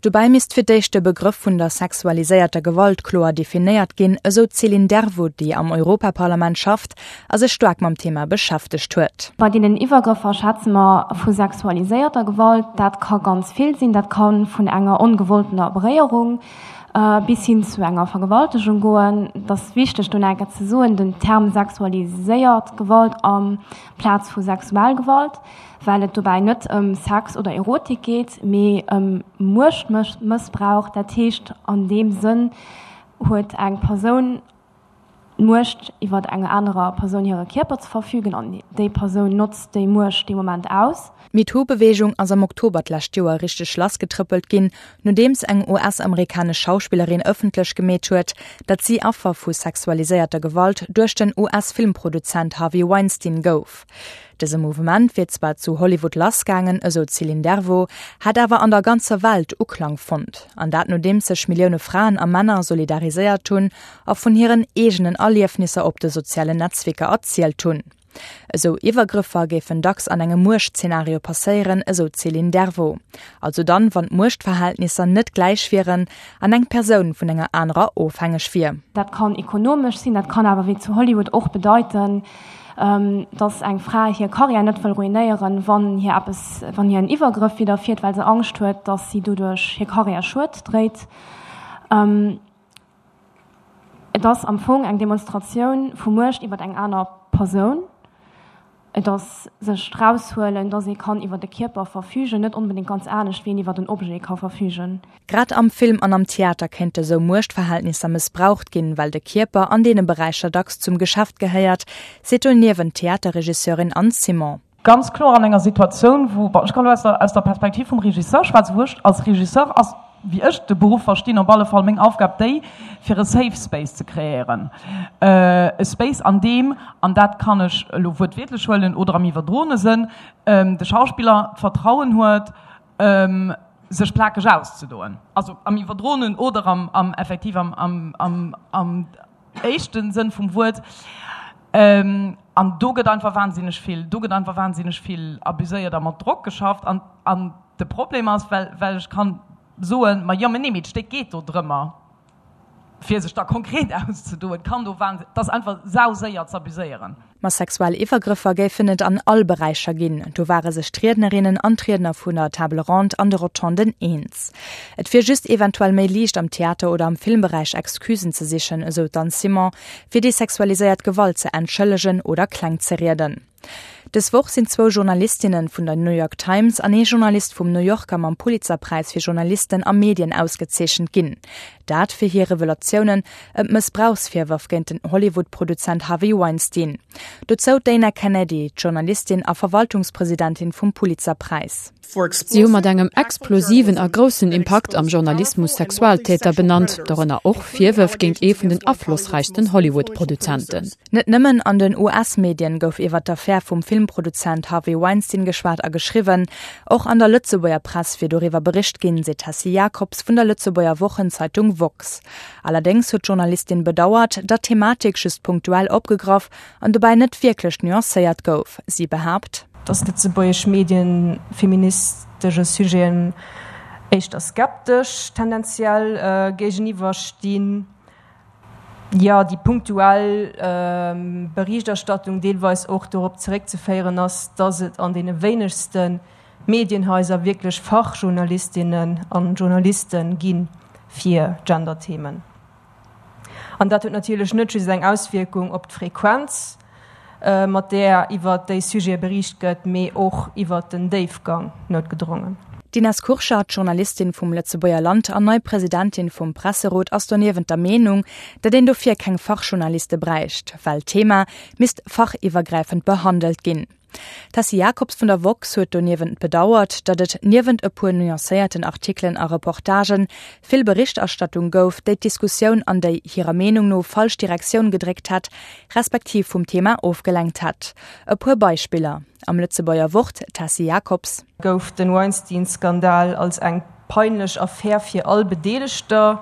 Dobäi misst fir d'éischt de Begrëff vun der sexualiséierter Gewalt kloer definéiert ginn, esou d'Céline Dervaux, déi am Europaparlament schafft a sech staark mam Thema beschäftegt huet. Bei deenen Iwwergrëffer schwätze mer vu sexualiséierter Gewalt. Dat ka ganz vill sinn. Dat ka vun enger ongewolltener Beréierung bis hin zu enger Vergewaltegung goen. Et ass wichteg do nach eng Kéier ze soen, den Term sexualiséiert Gewalt amplaz vu sexuell Gewalt. well et dobäi net ëm Sex oder Erotik geet, mee ëm Muechtmëssbrauch. Dat heescht, an deem Sënn huet eng Persoun d'Muecht iwwer enger anerer Persoun hire Kierper ze verfügen an déi Persoun notzt déi Muecht dee Moment aus. D'MeToo-Beweegung ass am Oktober d'lescht Joer richteg lassgetrëppelt ginn, nodeems eng US-amerikanesch Schauspillerin ëffentlech gemeet huet, datt si Affer vu sexualiséierter Gewalt duerch den US-Filmproduzent Harvey Weinstein gouf. Dëse Mouvement wier zwar zu Hollywood lassgaangen, esou d'Céline Dervaux, hätt awer an der ganzer Welt Uklang fonnt. An dat nodeems sech Millioune Fraen a Männer solidariséiert hunn a vun hiren eegenen Erliefnisser op de sozialen Netzwierker erzielt hunn. Esou Iwwergrëffer géifen dacks an engem Muechtzenario passéieren, esou d'Céline Dervaux. Also dann, wann d'Muechtverhältnisser net gläich wieren an eng Persoun vun enger anerer ofhängeg wier. Dat kann ekonomesch sinn, dat kann awer wéi zu Hollywood och bedeiten, dass eng Fra hir Karriär net wëll ruinéieren, wann hir eppes, wann hir en Iwwergrëff widderfiert, well se Angscht huet, dass si doduerch hir Karriär Schued dréit. Et ass am Fong eng Demonstratioun vu Muecht iwwer eng aner Persoun. Et ass sech eraushuelen, dass ee kann iwwer e Kierper verfügen, net onbedéngt ganz anescht, wéi een iwwer en Objet ka verfügen. Grad am Film an am Theater kéinte sou Muechtverhältnisser mëssbraucht ginn, well de Kierper an deene Beräicher dacks zum Geschäft gehéiert, seet doniewent d'Theaterregisseurin Anne Simon. Ganz kloer an enger Situatioun, wou, bon, ech kann elo aus der, aus der Perspektiv vum Regisseur schwätzen, wou ech als Regisseur ass, wéi ech de Beruff verstinn, op alle Fall meng Aufgab déi, fir e Safe Space ze kreéieren. E Space, an deem, an dat kann ech elo wuertwiertlech huelen oder am iwwerdroene Sënn, de Schauspiller d'Vertrauen huet, sech plakeg auszedoen, also am iwwerdroenen oder am, am effektiv am, am, am, am éischte Sënn vum Wuert. An do gëtt einfach wahnsinneg vill, do gëtt einfach wahnsinneg vill abuséiert a mat Drock geschafft. An, an de Problem ass, well, well ech kann soen, ma jo, mä nee, mee d'Stéck geet do drëmmer, fir sech da konkret auszedoen, kann do wahn, 't ass einfach sauséier z'abuséieren. Ma sexuell Iwwergrëffer géifen et an all Beräicher ginn, do ware sech d'Riednerinnen an d'Riedner vun der Table Ronde an de Rotonden eens. Et wier just eventuell méi liicht am Theater oder am Filmberäich Excusen ze sichen, esou d'Anne Simon, fir déi sexualiséiert Gewalt ze entschëllegen oder kleng ze rieden. Dës Woch sinn zwou Journalistinne vun der New York Times an ee Journalist vum New Yorker mam Pulitzerpräis fir Journalisten a Medien ausgezeechent ginn. Dat fir hir Revelatiounen ëm d'Mëssbrauchsvirwërf géint den Hollywood-Produzent Harvey Weinstein. Dozou d'Dana Kennedy, d'Journalistin a Verwaltungspresidentin vum Pulitzerpräis. Si hu mat engem explosiven a groussen Impakt am Journalismus Sexualtäter benannt, dorënner och Virwërf géint ee vun den aflossräichsten Hollywood-Produzenten. Net nëmmen an den US-Medien gouf iwwer d'Affär vum Filmproduzent Harvey Weinstein geschwat a geschriwwen, och an der Lëtzebuerger Press wier doriwwer bericht ginn, seet d'Tessy Jacobs vun der Lëtzebuerger Wochenzeitung woxx. Allerdéngs huet d'Journalistin bedauert, datt d'Thematik just punktuell opgegraff an dobäi net wierklech nuancéiert gouf. Si behaapt. Datt lëtzebuergesch Medien feministesche Sujeten éischter skeptesch tendenziell géigeniwwer stinn. Jo, déi punktuell Berichterstattung deelweis och dorop zeréckzeféieren ass, datt et an deene wéinegste Medienhaiser wierklech Fachjournalistinnen an Journaliste gi fir Genderthemen. An dat huet natierlech net just eng Auswierkung op d'Frequenz, mat där iwwert déi Sujete beriicht gëtt, mee och iwwert den Déifgang, noutgedrongen. D'Ines Kurschat, Journalistin vum Lëtzebuerger Land an nei Presidentin vum Presserot, ass doniewent der Meenung, datt een dofir keng Fachjournaliste bräicht, well d'Thema misst fachiwwergräifend behandelt ginn. D'Tessy Jacobs vun der woxx huet doniewent bedauert, datt et niewent e puer nuancéierten Artikelen a Reportagen, vill Berichterstattung gouf, déi d'Diskussioun an déi hirer Meenung no falsch Direktioun gedréckt hätt, respektiv vum Thema ofgelenkt hätt. E puer Beispiller am Lëtzebuerger Wort, Tessy Jacobs. Gouf den Weinstein-Skandal als eng peinlech Affär fir all Bedeelegter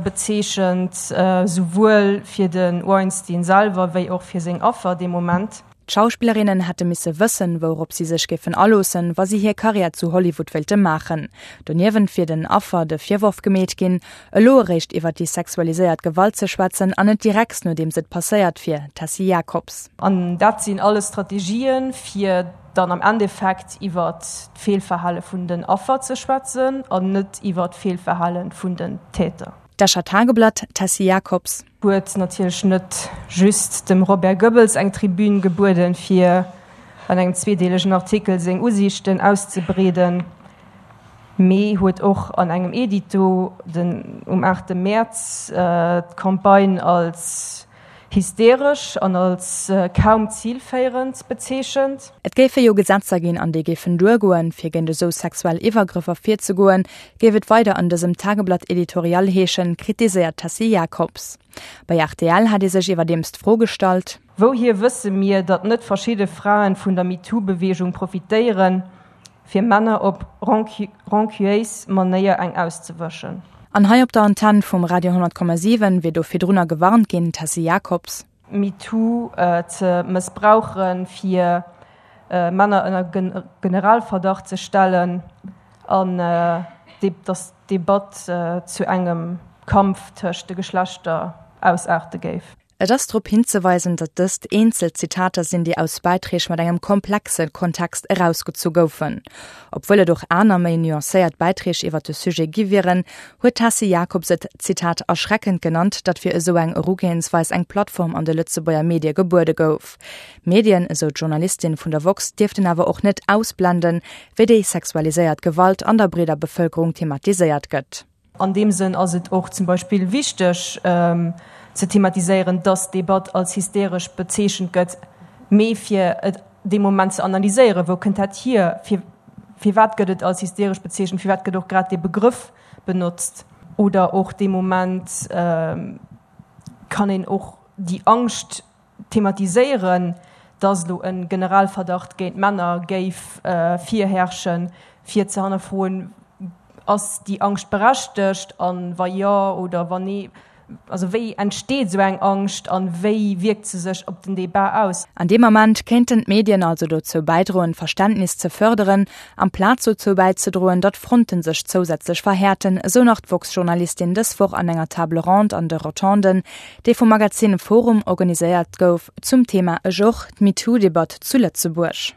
bezeechent, souwuel fir de Weinstein selwer wéi och fir seng Affer dee Moment. D'Schauspillerinnen hätte misse wëssen, wourop si sech géifen aloossen, wa si hir Karriär zu Hollywood wéilte maachen. Doniewent wier den Affer de Virworf gemeet ginn, elo eréischt iwwer déi sexualiséiert Gewalt ze schwätzen an net direkt nodeems et passéiert wier, Tessy Jacobs. An dat sinn alles Strategien, fir dann am Endeffekt iwwer d'Feelverhale vun den Affer ze schwätzen an net iwwer d'Feelverhale vun den Täter. D'Escher Tageblatt, Tessy Jacobs. Huet natierlech net just dem Robert Goebbels eng Tribün gebueden, fir an engem zweedeelegen Artikel seng Usiichten auszebreeden, mee huet och an engem Edito den um 8 Mäerz d'Campagne als hysteresch an als kaum zilféierend bezeechent. Et géife jo Gesetzer ginn an déi géifen duergoen, fir géint esou sexuell Iwwergrëffer virzegoen, géif et weider an dësem Tageblatt-Editorial heeschen, kritiséiert d'Tessy Jacobs. Bei rtl hat ee sech iwwerdeems d'Fro gestallt. Wouhier wësse mir, datt net verschidde Fraen vun der MeToo-Beweegung profitéieren, fir Männer op rancuéis Manéier eng auszewëschen? An hei op der Antenn vum Radio 100,7 wier do virdrunner gewarnt ginn, Tessy Jacobs. MeToo ze mëssbrauchen, fir Männer ënner Generalverdacht ze stellen an datt d'Debatt zu engem Kampf tëscht de Geschlechter ausaarte géif. Et ass drop hinzeweisen, datt dëst eenzel Zitater sinn, déi aus Bäiträg mat engem komplexe Kontext erausgezu goufen. Obwuel et och aner, méi nuancéiert Bäiträg iwwer de Sujet gi wieren, huet d'Tessy Jacobs et, Zitat, erschreckend genannt, datt fir esou eng Erugehensweis eng Plattform an de Lëtzebuerger Medie gebuede gouf. D'Medien, esou d'Journalistin vun der woxx, dierften awer och net ausblenden, wéi déi sexualiséiert Gewalt an der breeder Bevëlkerung thematiséiert gëtt. An deem Sënn ass et och zum Beispill wichteg ze thematiséieren, dass d'Debatt als hysteresch bezeechent gëtt, mee fir et dee Moment ze analyséieren, wou kënnt dat hier, firwat gëtt et als hysteresch bezeechent, firwat gëtt och grad dee Begrëff benotzt. Oder och dee Moment kann een och déi Angscht thematiséieren, dass elo e Generalverdacht géint Männer géif virherrschen, fir ze hannerfroen, Ass déi Angscht berechtegt a wa jo oder wa nee, also wéi entsteet esou eng Angscht a wéi wierkt se sech op den Debat aus? An deem Ament kéinten d'Medien also dozou bäidroen, Verständnis ze fërderen, amplaz dozou bäizedroen, datt Fronte sech zousätzlech verhäerten, esou nach d'woxx-Journalistin dës Woch an enger Table ronde an de Rotonden, déi vum Magazin Forum organiséiert gouf, zum Thema Ech och, d'MeToo-Debatt zu Lëtzebuerg.